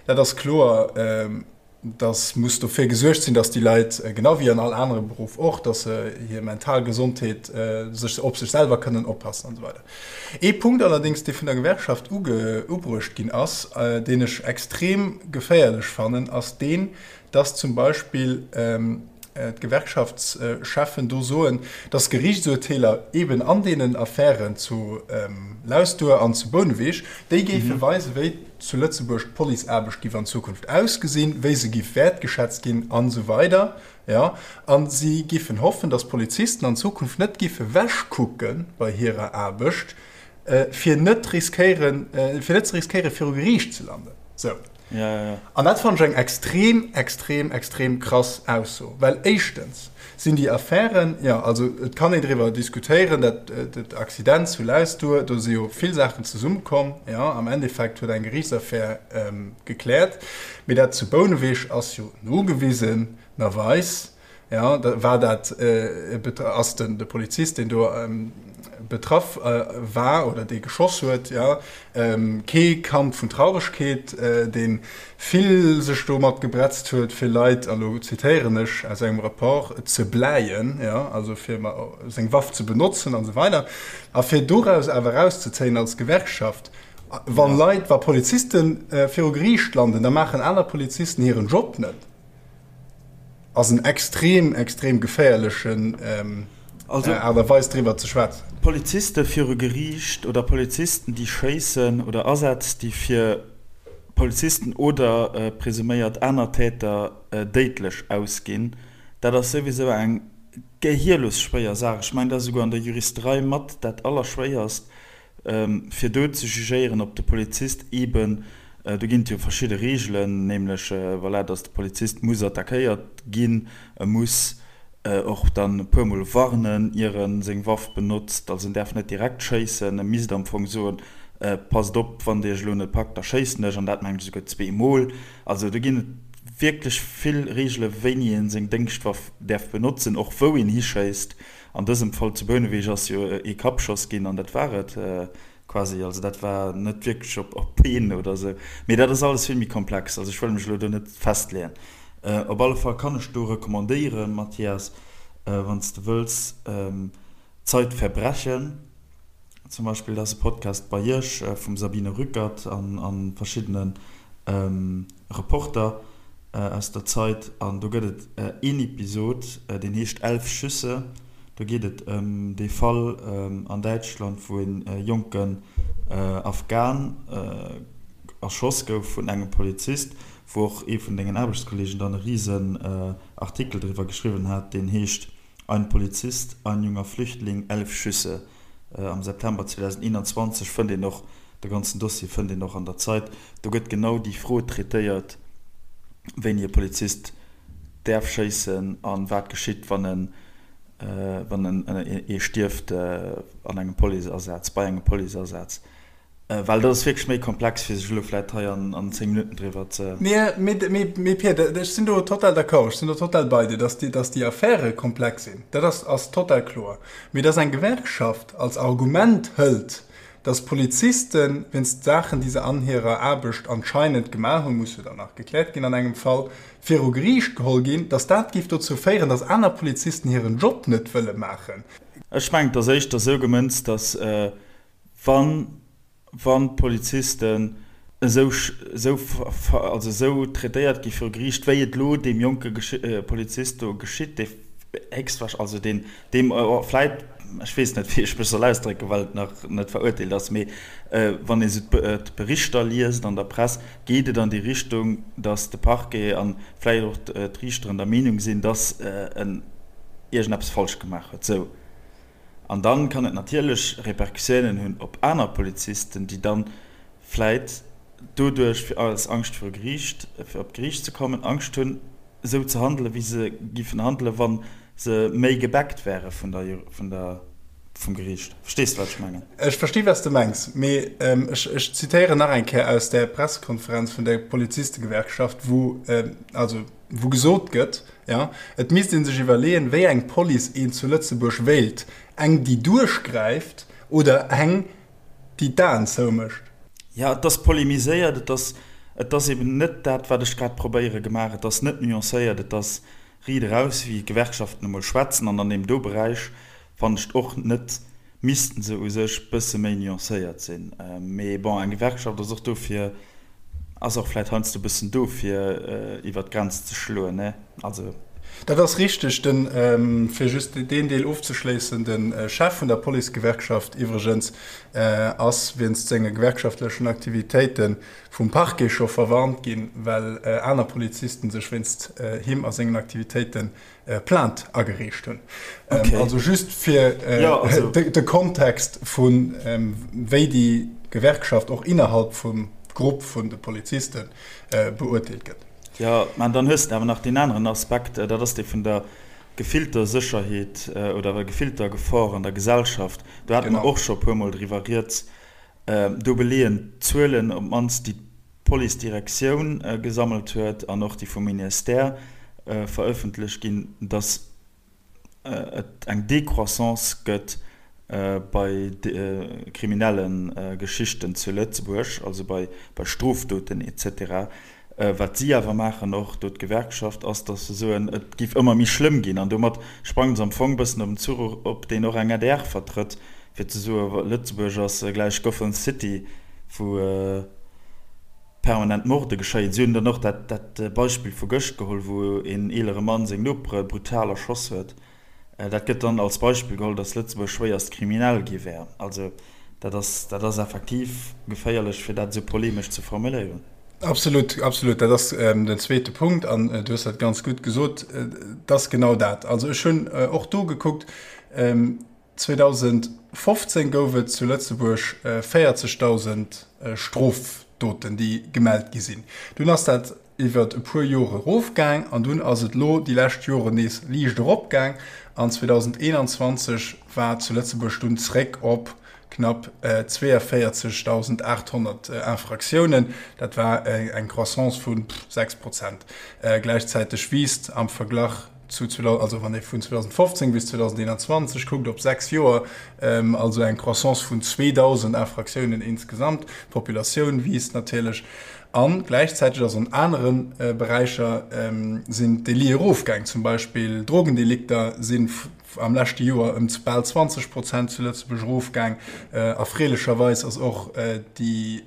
Speaker 2: dat ass kloer. dass muss dofir gesuergt sinn, dass déi Leit, genau wéi an all anere Beruff och, dass se hir mental Gesondheet, sech op sech selwer kënnen oppassen an esou weider. Ee Punkt allerdéngs, dee vun der Gewerkschaft ubruecht ginn ass, deen ech extrem geféierlech fannen, ass deen, dass zum Beispill d'Gewerkschaftscheffen do soen, dass Geriichtsurteeler eben an deenen Affären zu Lausduer an zu Bouneweg, déi géife weisen, wéi zu Lëtzebuerg d'Policeaarbecht giff an Zukunft ausgesinn, wéi se giff wäertgeschätzt ginn an esou weider. Jo, a si giffen hoffen, dass d'Polizisten an Zukunft net giffe wechkucke bei hirer Aarbecht, fir net riskéieren, fir net ze riskéieren, viru Geriicht ze landen. Sou. An dat fannen ech eng extrem, extrem, extrem krass Ausso. Well éischtens sinn déi Affären, jo, also et kann een driwwer diskutéieren, dat dat Accident zu Lausduer, do si jo vill Saachen zesummekomm, jo, am Endeffekt huet eng Geriichtsaffär gekläert. Mee dat zu Bouneweg ass jo nogewisenerweis Jo, da war dat, ass den de Polizist, deen do betraff war oder dee geschoss huet, jo, kee Kand vun Trauregkeet, dee vill sech domat gebretzt huet, fir Leit, a lo zitéieren ech aus engem Rapport, ze bläien, jo, also fir seng Waff ze benotzen an esou weider. A fir doraus awer erauszezéien als Gewerkschaft, wa Leit, wa Poliziste viru Geriicht landen, da maachen aner Polizisten hiren Job net. Ass en extrem, extrem geféierlechen Aart a Weis driwwer ze schwätzen.
Speaker 1: Poliziste viru Geriicht oder Polizisten déi schéissen oder Asätz déi fir Polizisten oder presuméiert aner Täter déidlech ausginn, dat ass souwisou eng. gehierlos schwéier Saach. Ech mengen, dat ass esouguer an der Juristerei mat dat Allerschwéierst, fir do ze jugéieren, ob de Polizist eeben, do ginn et jo verschidde Reegelen, nämlech, voilà, datt de Polizist muss attackéiert ginn, e muss och dann e puermol warnen, ier e seng Waff benotzt, also en däerf net direkt schéissen, e misst am Fong soen, Passt op, wann Dir iech elo net packt, da schéissen ech, an dat mengen ech esouguer zweemol. Also do ginn et wierklech vill Reegele wéini ee seng Déngschtwaff däerf benotzen, och wou een hischéisst. An dësem Fall zu Bouneweg ass jo ee Kappschoss ginn an dat war et quasi. Also dat war net wierklech op op Been oder esou. Mee dat ass alles vill méi komplex. Also ech wëll mech elo do net festleeën. Op alle Fall kann ech do recommandéieren, Mathias, wann s de wëlls, Zeitverbrechen zum Beispill, dat ass e Podcast bei Iech vum Sabine Rückert an verschiddene Reporter aus der Zeit. An do gëtt et een Episod, deen heescht Elf Schüsse. Do geet et ëm dee Fall an Däitschland, wou e jonken Afghan erschoss gouf vun engem Polizist, wou och ee vun dengen Aarbechtskolleegen dann e risen Artikel driwwer geschriwwen hat, deen heescht Ein Polizist, ein junger Flüchtling, elf Schüsse. Am September 2021 fënnt een och, de ganzen Dossier fënnt een och an der Zeit. Do gëtt genau déi Fro traitéiert, wéini e Polizist däerf schéissen a wat geschitt, wann en, wann en ee stierft an engem Policeasaz, bei engem Policeasaz. Well dat ass wierklech méi komplex, fir sech elo vläit hei an 10 Minutten driwwer ze.
Speaker 2: Mee Pir, ech sinn do total d'accord, ech sinn do total bei dir, dass déi Affäre komplex sinn, dat ass total kloer. Mee dass eng Gewerkschaft als Argument hëlt, dass Polizisten wéinst Saachen, déi se an hirer Aarbecht anscheinend gemaach hunn, muss jo dann nach gekläert ginn an engem Fall, viru Geriicht geholl ginn, dass dat géif dozou féieren, dass aner Polizisten hiren Job net wëlle maachen.
Speaker 1: Ech mengen, et ass éischter esou gemënzt, dass Wann, wann d'Polizisten esou, esou, also esou traitéiert gi viru Geriicht, wéi et elo deem jonke Polizist do geschitt, dee héchstwahrsch-, also deen, deem vläit, ech weess net, wéi ech mech soll ausdrécken, well et nach net verurteelt ass, mee wann ee sou d'Berichter liest an der Press, geet et an déi Richtung, datt de Parquet a vläicht och d'Riichteren der Meenung sinn, datt en iergendeppes falsch gemaach huet. Sou. An dann kann et natierlech Repercussiounen hunn op aner Polizisten, déi dann vläit doduerch, fir aus Angscht viru Geriicht, fir op d'Geriicht ze kommen, Angscht hunn, esou ze handelen, wéi se giffen handelen, wa se méi gebackt wäre vun der, vun der, vum Geriicht. Verstees de, wat ech mengen?
Speaker 2: Ech versti wat s de mengs, mee ech, ech zitéieren nach eng Kéier aus där Pressekonferenz vun der Polizistegewerkschaft, wou, also, wou gesot gëtt, jo, et misst ee sech iwwerleeën, wéi eng Police een zu Lëtzebuerg wéilt, eng, déi duerchgräift oder eng, déi d'Aen zoumécht.
Speaker 1: Jo, et ass polemiséiert, et ass, et ass eben net dat, wat ech grad probéiere gemaach, et ass net nuancéiert, et ass riit eraus, wéi d'Gewerkschaften emol schwätzen. An an deem do Beräich fannen ech et och net, missten se u sech bësse méi nuancéiert sinn. Mee bon, eng Gewerkschaft ass och do fir, ass och vläit heiansdo e bëssen do fir iwwer d'Grenz ze schloen, ne? Also.
Speaker 2: Dat ass richteg. Den, fir just deen Deel ofzeschléissen, de Chef vun der Policegewerkschaft iwwregens ass wéinst senge gewerkschaftlechen Aktivitéite vum Parquet scho verwarnt ginn, well aner Polizisten sech wéinst him a sengen Aktivitéite Plainte agereecht hunn. Okay. Also just fir äh, ja, also. de, de Kontext vun ähm, wéi déi Gewerkschaft och innerhalb vum Grupp vun de Polizisten äh, beurteelt gëtt.
Speaker 1: Ja, man dann hues de awer nach deen aneren Aspekt, äh, dat ass dee vun der gefillter Sécherheet äh, oder gefillter Gefor an der Gesellschaft. Do hate mer och scho puermol driwwer rieds. Äh, do beleeën d'Zuelen op d'mannst déi d'Policedirektioun gesammelt huet an och déi vum Ministère verëffentlecht ginn, datt et eng Décroissance gëtt bei kriminelle Geschichten zu Lëtzebuerg, also bei Strofdoten et cetera. Wat si awer maachen, och do d'Gewerkschaft, ass, datt se soen, et géif ëmmer méi schlëmm ginn. An domat sprange se am Fong e bëssen op den Zuch op, deen och eng adr vertrëtt, fir ze soen, Lëtzebuerg ass gläich Gotham City, wou permanent Morde geschéien. Si hunn dann och dat Beispill vu gëscht geholl, wou een eelere Mann seng Nopere brutal erschoss huet. Dat gëtt dann als Beispill geholl, datt Lëtzebuerg schwéierst kriminell gi wär. Also dat ass, dat ass effektiv geféierlech, fir dat esou polemesch ze formuléieren.
Speaker 2: Absolut, absolut. Dat ass den zweete Punkt an du hues dat ganz gutt gesot. Et ass genau dat. Also ech hunn och do gekuckt, 2015 gouf et zu Lëtzebuerg 40.000 Strofdoten, déi gemellt gi sinn. Dunn ass dat iwwer e puer Jore erofgaang an dunn ass et elo déi lescht Joren nees liicht eropgaang an 2021 war zu Lëtzebuerg dunn zréck op knapp 42.800 Infraktiounen. Dat war eng Croissance vu 6 Prozent. Gläichzäiteg wiisst am Verglach zu, also wann ee vun 2015 bis 2021 kuckt, op 6 Joer, also eng Croissance vun 2.000 Infraktiounen insgesamt. D'Populatioun wiisst natierlech a gläichzäiteg ass an anere Beräicher sinn d'Délite erofgaang. Zum Beispill Drogendelikter si am leschte Joer ëm bal 20 Prozent zu Lëtzebuerg erofgaang. Erfreelecherweis ass och déi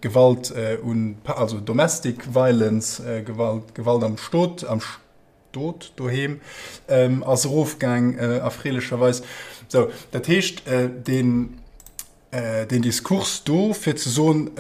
Speaker 2: d'Gewalt un, also Domestic Violence, Gewalt, Gewalt am Stot, am Stot doheem, ass erofgaang, erfreelecherweis. Sou, dat heescht, deen Deen Diskurs do, fir ze soen,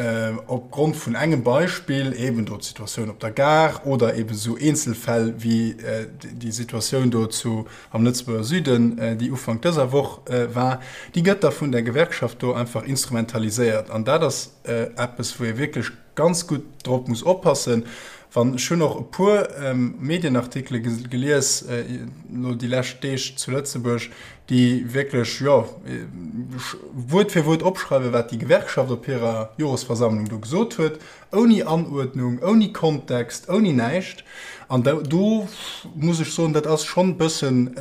Speaker 2: opgrond vun engem Beispill, eben do d'Situatioun op der Gare oder eben esou Eenzelfäll wéi déi Situatioun do zu am Lëtzebuerger Süden, déi Ufank dëser Woch war, déi gëtt da vun der Gewerkschaft do einfach instrumentaliséiert. An dat ass eppes, wou ee wierklech ganz gutt drop muss oppassen. Wann, ech hunn och e puer Medienartikele gelies elo déi lescht Deeg zu Lëtzebuerg, déi wierklech, jo, Wuert fir Wuert opschreiwen, wat déi Gewerkschaft op hirer Joresversammlung do gesot huet, ouni Anuerdnung, ouni Kontext, ouni näischt. An do muss ech soen, dat ass schonn e bëssen,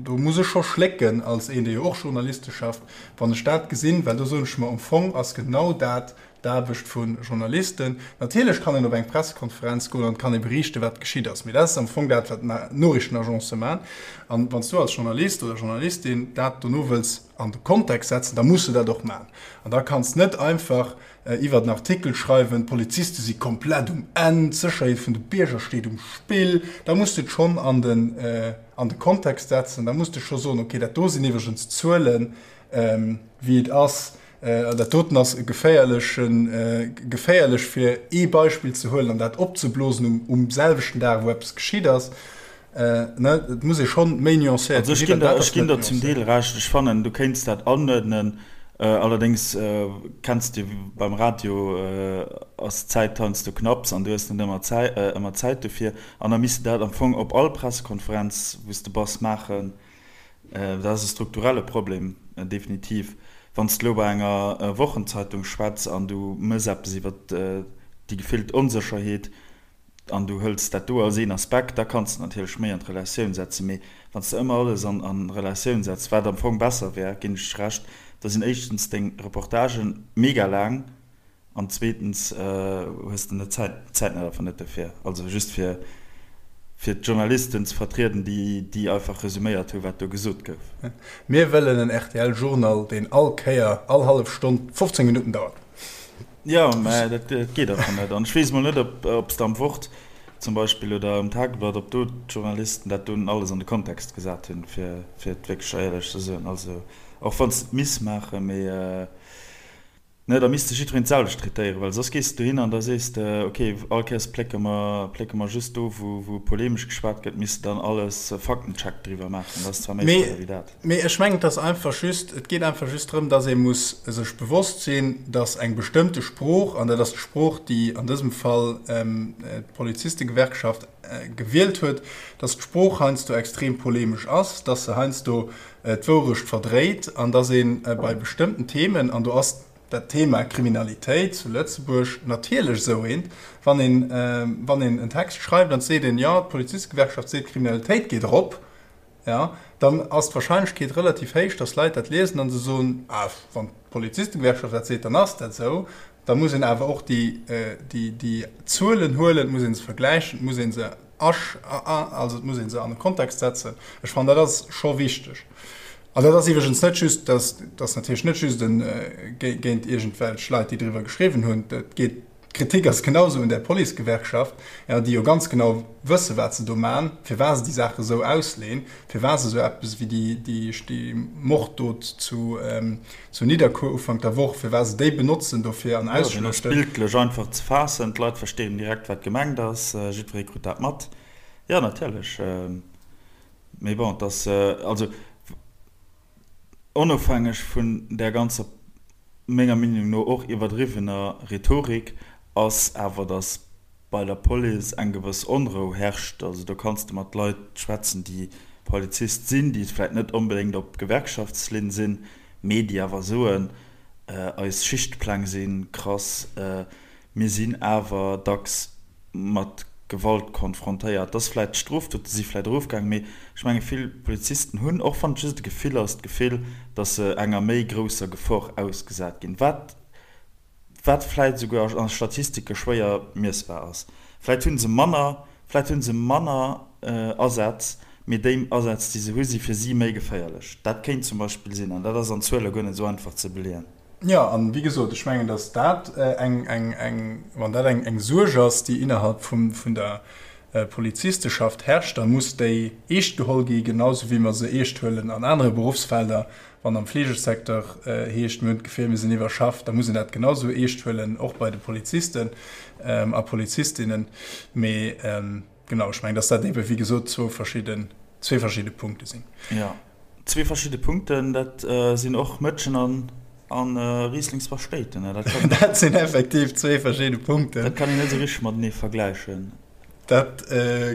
Speaker 2: do muss ech scho schlécken als een, dee jo och journalistesch schafft, wann ech dat gesinn, well do soen ech mer, am Fong ass genau dat d'Aarbecht vu Journalisten. Natierlech kann een op eng Pressekonferenz goen an kann ee beriichten, wat geschitt ass, mee dat ass am Fong dat, wat d'Noriichtenagencë maachen. An wann s du als Journalist oder Journalistin dat dono wëlls an de Kontext setzen, da muss de dat och maachen. An da kanns net einfach iwwert en Artikel schreiwen, d'Poliziste si komplett um Enn, d'Sécherheet vun de Bierger steet um Spill. Da muss de et schonn an den, an de Kontext setzen. Da muss de scho soen, okay, dat do sinn iwwregens d'Zuelen, wéi et ass. Dat doten ass e geféierlechen, geféierlech fir ee Beispill ze huelen an dat opzeblosen um, um selwechten Dag, wou eppes geschitt ass. Ne, et muss ee schonn méi nuancéiert
Speaker 1: Also ech ginn der, ech ginn der zum Deel Recht. Ech fannen, du kéints dat anuerdnen. Allerdéngs kenns de beim Radio ass d'Zäit heiansdo knapps an du hues net ëmmer Zäit, ëmmer Zäit dofir. An da misst de dat am Fong op all Pressekonferenz, wou s de bass, maachen. Dat ass e strukturelle Problem, definitiv. Wann s de elo bei enger Wochenzeitung schwätz an du mëss eppes iwwer déi gefillt Onsécherheet an du hëls dat do als een Aspekt, da kanns de natierlech méi an d'Relatioun setzen. Mee wann s de ëmmer alles an Relatioun setz, wat am Fong besser wär, ginn ech Recht, da sinn éischtens deng Reportagen mega laang, An zweetens hues de net d'Zäit, d'Zäit net einfach net dofir. Also just fir fir d'Journalisten ze vertrieden, déi déi einfach resuméiert hu wat do gesot gouf.
Speaker 2: Mir wëllen en rtl Journal, deen all Kéier, all hallef Stonn 15 Minutten dauert.
Speaker 1: Jo, mä dat geet einfach net. An ech weess emol net, ob ob s de am Wort zum Beispill oder am Tageblatt, ob do d'Journalisten dat dunn alles an de Kontext gesat hunn, fir fir et wierklech éierlech ze soen. Also och wann s de et misst maachen, mee. Ne, da misst de jiddwereen d'selwecht traitéieren, well soss gees de dohin an da sees de, ok, all Kéiers plécke mer, plécke mer just do, wou, wou polemesch geschwat gëtt, misst de dann alles Faktencheck driwwer maachen. Dat ass zwar méi schwéier wéi dat.
Speaker 2: Mee ech mengen, et ass einfach just, et geet einfach just drëm, dass ee muss sech bewosst sinn, dass eng bestëmmte Sprooch, an dat ass d'Sprooch, déi an dësem Fall d'Polizistegewerkschaft gewielt huet, dass d'Sprooch heiansdo extrem polemesch ass, dass se heiansdo d'Wourecht verdréit an dass ee bei bestëmmten Themen, an do ass dat Thema Kriminalitéit zu Lëtzebuerg natierlech esou eent, wann een, wann een en Text schreift an et seet een, jo, d'Polizistegewerkschaft seet, d'Kriminalitéit geet erop, jo, dann ass d'Wahrscheinlechkeet relativ héich, dass Leit dat liesen a se soen, ah, wann d'Polizistegewerkschaft dat seet, dann ass dat esou. Da muss een awer och déi, déi, déi Zuelen huelen, et muss ee se vergläichen, et muss ee se Also et muss ee se an e Kontext setzen. Ech fannen, dat ass scho wichteg. An dat ass iwwregens net just, dat ass natierlech net just géint iergendwelch Leit, déi driwwer geschriwwen hunn. Et geet. D'Kritik ass genau esou un där Policegewerkschaft, jo, déi jo ganz genau wësse wat se do man, firwat se déi Saache esou ausleeën, firwat se esou eppes wéi déi, déi, déi Morddot zu, zu Nidderkuer Ufank der Woch, firwat se déi benotzen dofir an
Speaker 1: Jo, deen ass
Speaker 2: ausschluechten.
Speaker 1: bildlech einfach ze faassen, d'Leit verstinn direkt wat gemengt ass, jiddweree krut dat mat. Jo, natierlech, mee bon, et ass, also onofhängeg vun där ganzer, menger Meenung no och iwwerdriwwener Rhetorik, ass awer, datt bei der Police eng gewëss Onrou herrscht. Also do kanns de mat Leit schwätzen, déi Polizist sinn, déi vläicht net onbedéngt op Gewerkschaftslinn sinn, mee déi awer soen, eis Schichtpläng si krass, mir sinn awer dacks mat Gewalt konfrontéiert. Dass vläicht d'Strofdote si vläicht erofgaangen, mee ech menge vill Polizisten hunn, och wann et just e Gefill ass, d'Gefill, dass se enger méi grousser Gefor ausgesat ginn, wat wat vläicht esouguer a Statistike schwéier miessbar ass. Vläicht hu se manner, vläicht hu se manner Asätz, mee déi Asätz, déi se hu si fir si méi geféierlech. Dat kéint zum Beispill sinn, an dat ass an Zuele guer net esou einfach ze beleeën.
Speaker 2: Jo, an wéi gesot, ech mengen, datt dat eng, eng, eng, wann dat eng, eng Suerg ass, déi innerhalb vum, vun der Polizisteschaft herrscht, da muss déi eescht geholl gi, genau sou wéi mer se eescht huelen an anere Beruffsfelder. Wann am Fleegesecteur heescht, mir hunn d'Gefill, mir sinn iwwerschafft, da muss een dat genau sou eescht huelen, och bei de Polizisten a Polizistinnen. Mee genau, ech mengen, datt dat eebe wéi gesot zwou verschidden, zwee verschidde Punkte sinn.
Speaker 1: Jo, zwee verschidde Punkten, dat sinn och Mëtschen an Rieslingspaschtéiten.
Speaker 2: Dat sinn effektiv zwee verschidde Punkten.
Speaker 1: Dat kann een net esou richteg matenee vergläichen.
Speaker 2: Dat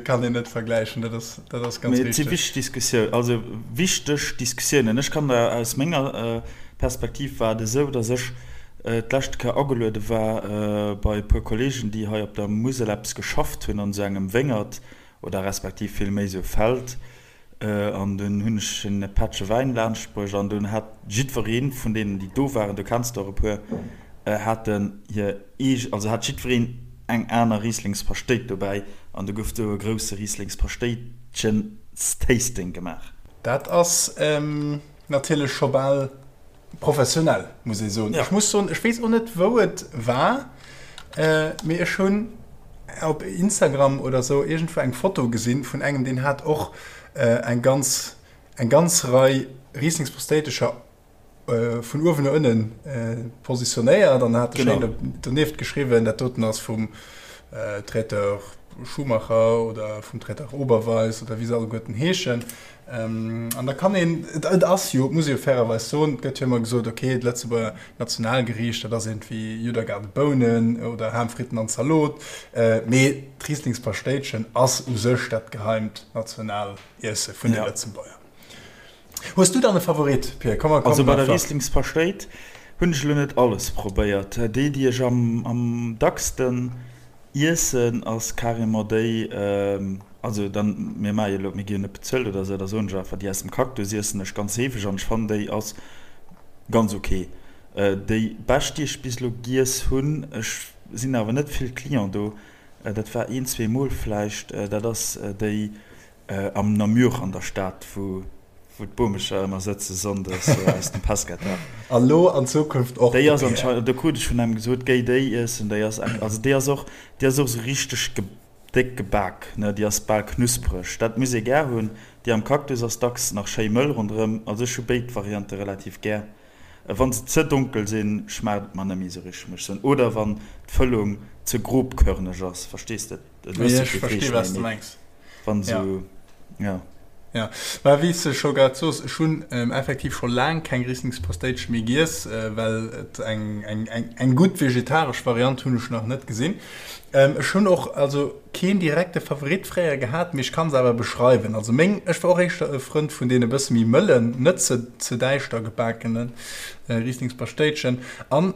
Speaker 2: kann een net vergläichen, dat ass, dat ass ganz
Speaker 1: richtig. Mee et si wichteg Diskussioun, also wichteg Diskussiounen. Ech kann der aus menger Perspektiv war et esou, datt ech d'leschte Kéier ageluede war bei e puer Kollegen, déi hei op der Musel eppes geschafft hunn an esou engem Wéngert oder respektiv vill méi esou Feld. An dunn hunn ech en e Pättche Wäin laanscht bruecht an dunn hat jiddweree vun deenen, déi do waren, du kenns der och e puer, haten hir eege, also hat jiddwereen eng aner Rieslingspaschtéit dobäi an du gouf do e grousse Rieslingspaschtéitchens-Tasting gemaach.
Speaker 2: Dat ass natierlech scho bal Professionell, muss ee soen. Ech muss soen, ech weess och net, wou et war, mee ech hunn op Instagram oder sou iergendwou eng Foto gesinn vun engem, deen hat och eng ganz, eng ganz Rei Rieslingsprostéitescher vun uewen no ënne positionéiert an hat schéin donieft geschriwwen, dat doten ass vum Traiteur Schumacher oder vum Traiteur Oberweis oder wéi se alleguerten heeschen. An da kann een, et ass jo, et muss ee jo fairerweis soen, et gëtt jo ëmmer gesot, okay, d'Lëtzebuerger Nationalgeriicht, dat ass iergendwéi Judd-a-Gaart Bounen oder Ham, Fritten an Zalot, mee d'Rieslingspaschtéitchen ass u sech dat geheimt Nationaliesse vun de Lëtzebuerger. Hues du dann e Favorit, Pir?
Speaker 1: Komm, komm, Also bei der Rieslingspaschtéit hunn ech elo net alles probéiert. Déi, déi ech am dacksten iessen, ass carrément déi, Also dann, mir maache jo elo, mir gi jo net bezuelt oder esou, da soen ech einfach, déi aus dem Cactus iessen ech ganz heefeg an ech fannen déi ass ganz ok. Déi bescht déi ech bis elo giess hunn, ech sinn awer net vill Client do, dat war een, zweemol vläicht, dat ass déi am Namur an der Stad, wou wou d'Bomecher ëmmer sëtze sonndes aus dem Pescateur.
Speaker 2: A lo an Zukunft och
Speaker 1: Déi ass anscheinend, do krut ech vun engem gesot, géi déi iessen, déi ass, also déi ass och, déi ass och esou richteg Déck gebak, ne, déi ass bal knuspreg. Dat muss ee gär hunn. Déi am Cactus ass dacks nach schéi mëll ronderëm. Also ech hu béid Variante relativ gär. Wann se ze donkel sinn, schmaacht et mer net méi esou richteg, muss ech soen. Oder wann d'Fëllung ze grobkörneg ass, verstees de? Du hues jo
Speaker 2: kee Fleesch méi, mee
Speaker 1: wann esou, jo.
Speaker 2: Jo, mä wéi s de scho grad soos, ech hunn effektiv scho laang keng Rieslingspasteitche méi giess, well et eng, eng, eng, eng gutt vegetaresch Variant hunn ech nach net gesinn. Ech hunn och also keen direkte Favorit fréier gehat, mee ech kann se awer beschreiwen. Also meng, ech war och éischter e Frënd vun deene bësse méi mëllen, net ze, ze däischter gebakene Rieslingspaschtéitchen. An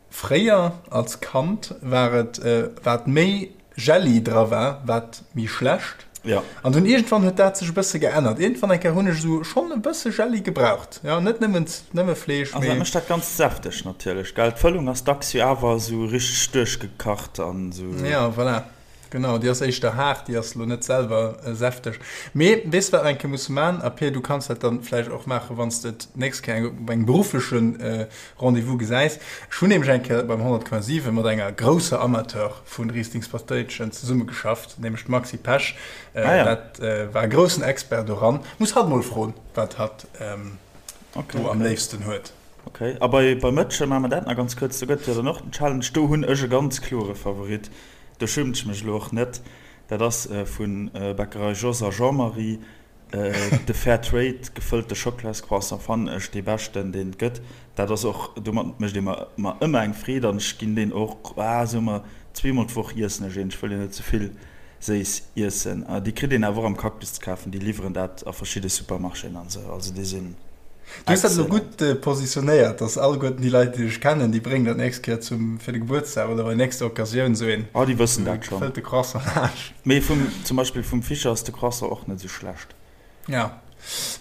Speaker 2: Fréier als Kand war et, wat méi Jelli dra war, wat méi schlecht.
Speaker 1: Ja.
Speaker 2: An dunn iergendwann huet dat sech e bësse geännert. Iergendwann eng Kéier hunn ech esou schonn e bësse Jelli gebraucht. Ja, net nëmmen, nëmme Fleesch,
Speaker 1: Also dat mee. mécht dat Ganzt säfteg natierlech, gell? D'Fëllung ass dacks jo awer esou richteg duerchgekacht an esou.
Speaker 2: Ja, voilà. Genau, déi ass éischter haart, déi ass elo net selwer säfteg. Mee weess de wat mer eng Kéier musse maachen? A Pir, du kanns dat dann vläicht och maachen, wann s de et d'nächst Kéier op engem beruffleche Rendez-vous gesäis. Ech hunn nämlech eng Kéier beim 100,7 mat enger grousser Amateur vu Rieslingspatéitchen zesummegeschafft, nämlech d'Maxi Pesch. Dat war e groussen Expert doran. Muss hatt mol froen, wat hatt do am léifsten huet.
Speaker 1: Ok, a bei Mëtschen, maache mer dat nach ganz kuerz, do gëtt et jo dann och den Challenge. Do hunn ech e ganz klore Favorit. Do schummt ech mech elo och net. Dat ass vu Bäckerei Jos a Jean-Marie. De Fair Trade gefëllte Schockelascroissant fannen ech dee beschten deen et gëtt. Dat ass och, domat mécht ee mer mer ëmmer eng Freed an ech ginn deen och, ah soe mer zweemol d'Woch iessen ech een. Ech wëll jo net ze vill séiss iessen. Déi kritt een awer och am Cactus ze kafen, déi liwweren dat a verschidde Supermarchéen an esou. Also déi sinn.
Speaker 2: Du hues dat elo gutt positionéiert, dass alleguerten déi Leit, déi dech kennen, déi bréngen der d'nächst Kéier zum, fir de Gebuertsdag oder bei nächster Occasioun esou een
Speaker 1: Oh, déi wëssen dat schonn.
Speaker 2: gefëllte Croissant laanscht.
Speaker 1: Mee vum, zum Beispill vum Fischer ass de Croissant och net esou schlecht.
Speaker 2: Ja.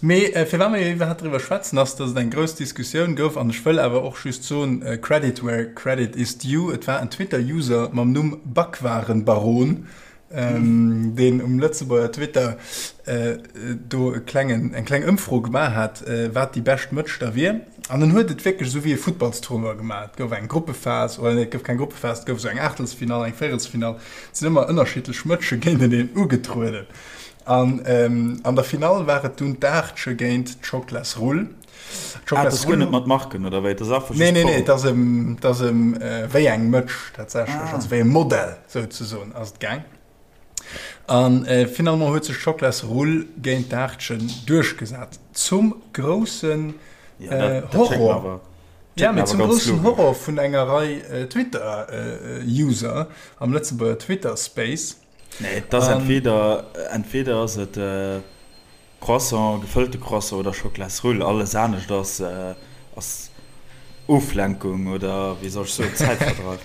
Speaker 2: Mee firwat mer jo iwwerhaapt driwwer schwätzen, ass, dass et eng grouss Diskussioun gouf, an ech wëll awer och just soen, Credit where credit is due, et war en Twitter-User mam Numm Backwarenbaron, deen um Lëtzebuerger Twitter do e klengen, eng kleng Ëmfro gemaach hat, wat déi bescht Mëtsch da wier. An en huet et wierklech esou wéi e Futtballstournoi gemaach. Et gouf eng Gruppephas, oder nee, et gouf keng Gruppephas, et gouf esou eng Aachtelsfinall, eng Véierelsfinall. Et sinn ëmmer ënnerschiddlech Mëtsche géinteneen ugetrueden. An an der Finall war et dunn d'Aachtche géint d'Schoklasrull.
Speaker 1: Ah, et ass guer net mat Marken oder wéi? Et ass einfach just
Speaker 2: Nee, nee, nee, et ass ëm, et ass ëm wéi eng Mëtsch tatsächlech, also wéi e Modell souzesoen ass et gaang. An finalement huet sech d'Schoklasrull géint d'Aartchen duerchgesat, zum groussen Horror, ja, mee zum groussen Horror vun enger Rei Twitter-User am Lëtzebuerger Twitter-Space.
Speaker 1: Nee, et ass entweder, entweder ass et Croissant, gefëllte Croissant oder Schoklasrull, alles anescht ass ass Oflenkung oder wéi soll ech soen, Zäitverdreif.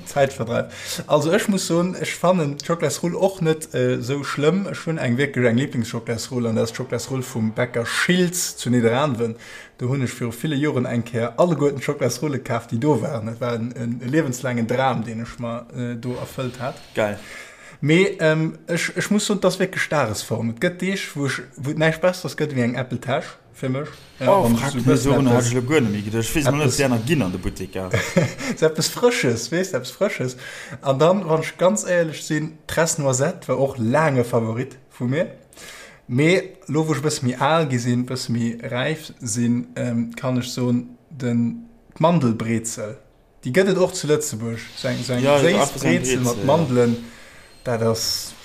Speaker 2: Zäitverdreif. Also ech muss soen, ech fannen d'Schoklasrull och net esou schlëmm. Ech hunn eng wierklech eng Liblingsschoklasrull an dat ass d'Schoklasrull vum Bäcker Schiltz zu Nidderaanwen. Do hunn ech viru ville Joren eng Kéier alleguerten d'Schoklasrulle kaf déi do waren. Dat war en liewenslaangen Dram deen ech mer do erfëllt hat.
Speaker 1: Geil.
Speaker 2: Mee ech, ech muss soen, et ass wierklech Dagesform. Et gëtt Deeg, wou ech, wou et näischt Besseres gëtt ewéi eng Apple Täsch fir mech.
Speaker 1: Ja, oh, wann ech sou e bëssen dorunner hat ech elo guer net méi geduecht. Ech weess emol net, ob déi aner ginn an de Butteker.
Speaker 2: Sou eppes Frësches, weess de, eppes Frësches. An dann, wann ech ganz éierlech sinn, d'Tresse Noisette war och laang e Favorit vu mir. Mee elo, wou ech e bësse méi al gi sinn, e bësse méi räif sinn, kann ech soen, den, d'Mandelbrezel. Déi gëtt et och zu Lëtzebuerg, sou eng sou eng séiss Brezel mat Mandelen, dat ass.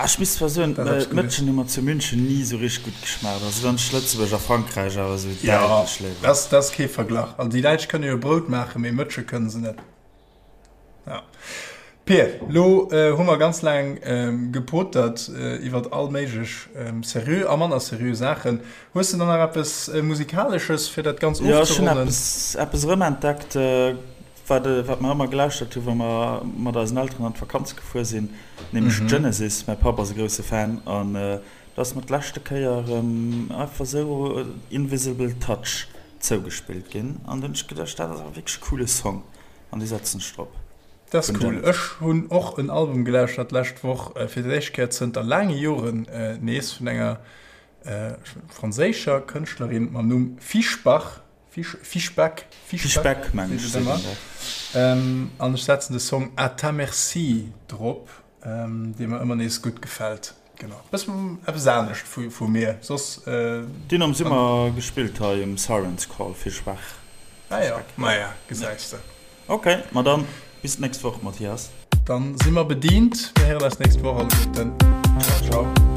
Speaker 1: Ah, ech misst zwar soen, d'Mëtschen hu mer zu München ni sou richteg gutt geschmaacht. Also dann ass Lëtzebuerg a Frankräich awer sou
Speaker 2: däitlech léiwer. Jo, dat ass kee Verglach. Also déi Däitsch kënne jo Brout maachen, mee Mëtsche kënne se net. Ja. Pir, lo hu mer ganz laang gepotert iwwert all méiglech seriö a manner seriö Saachen. Hues de dann nach eppes Musikalesches, fir dat Ganz
Speaker 1: ofzeronnen? Jo, ech hunn eppes, eppes erëmentdeckt, wat, wat mer ëmmer gelauschtert hunn, wa mer mat eisen Elteren an d'Vakanz gefuer sinn, nämlech Genesis. Mäi Papp ass e grousse Fan an do ass mer d'leschte Kéier erëm einfach esou Invisible Touch zougespillt ginn an du hunn ech geduecht, dat ass awer wierklech e coole Song an dee setzen ech drop.
Speaker 2: Dat ass cool. Ech hunn och en Album gelauschtert d'lescht Woch, fir d'éischt Kéier zënter laange Joren nees, vun enger franséischer Kënschtlerin mam Numm Fischbach, Fischbach,
Speaker 1: Fischbach mengen ech seet een
Speaker 2: dat. An ech setzen de Song À ta merci drop, dee mer ëmmer nees gutt gefält. Genau, bëssen eppes anescht vu mir soss.
Speaker 1: Deen am Summer gespillt hei um Siren's Call, Fischbach.
Speaker 2: Ah jo, maja, gesäis de.
Speaker 1: Ok, ma dann bis d'nächst Woch, Mathias.
Speaker 2: Dann si mer bedient. Mir héieren eis nächst Woch alleguerten.
Speaker 1: Ciao, ciao.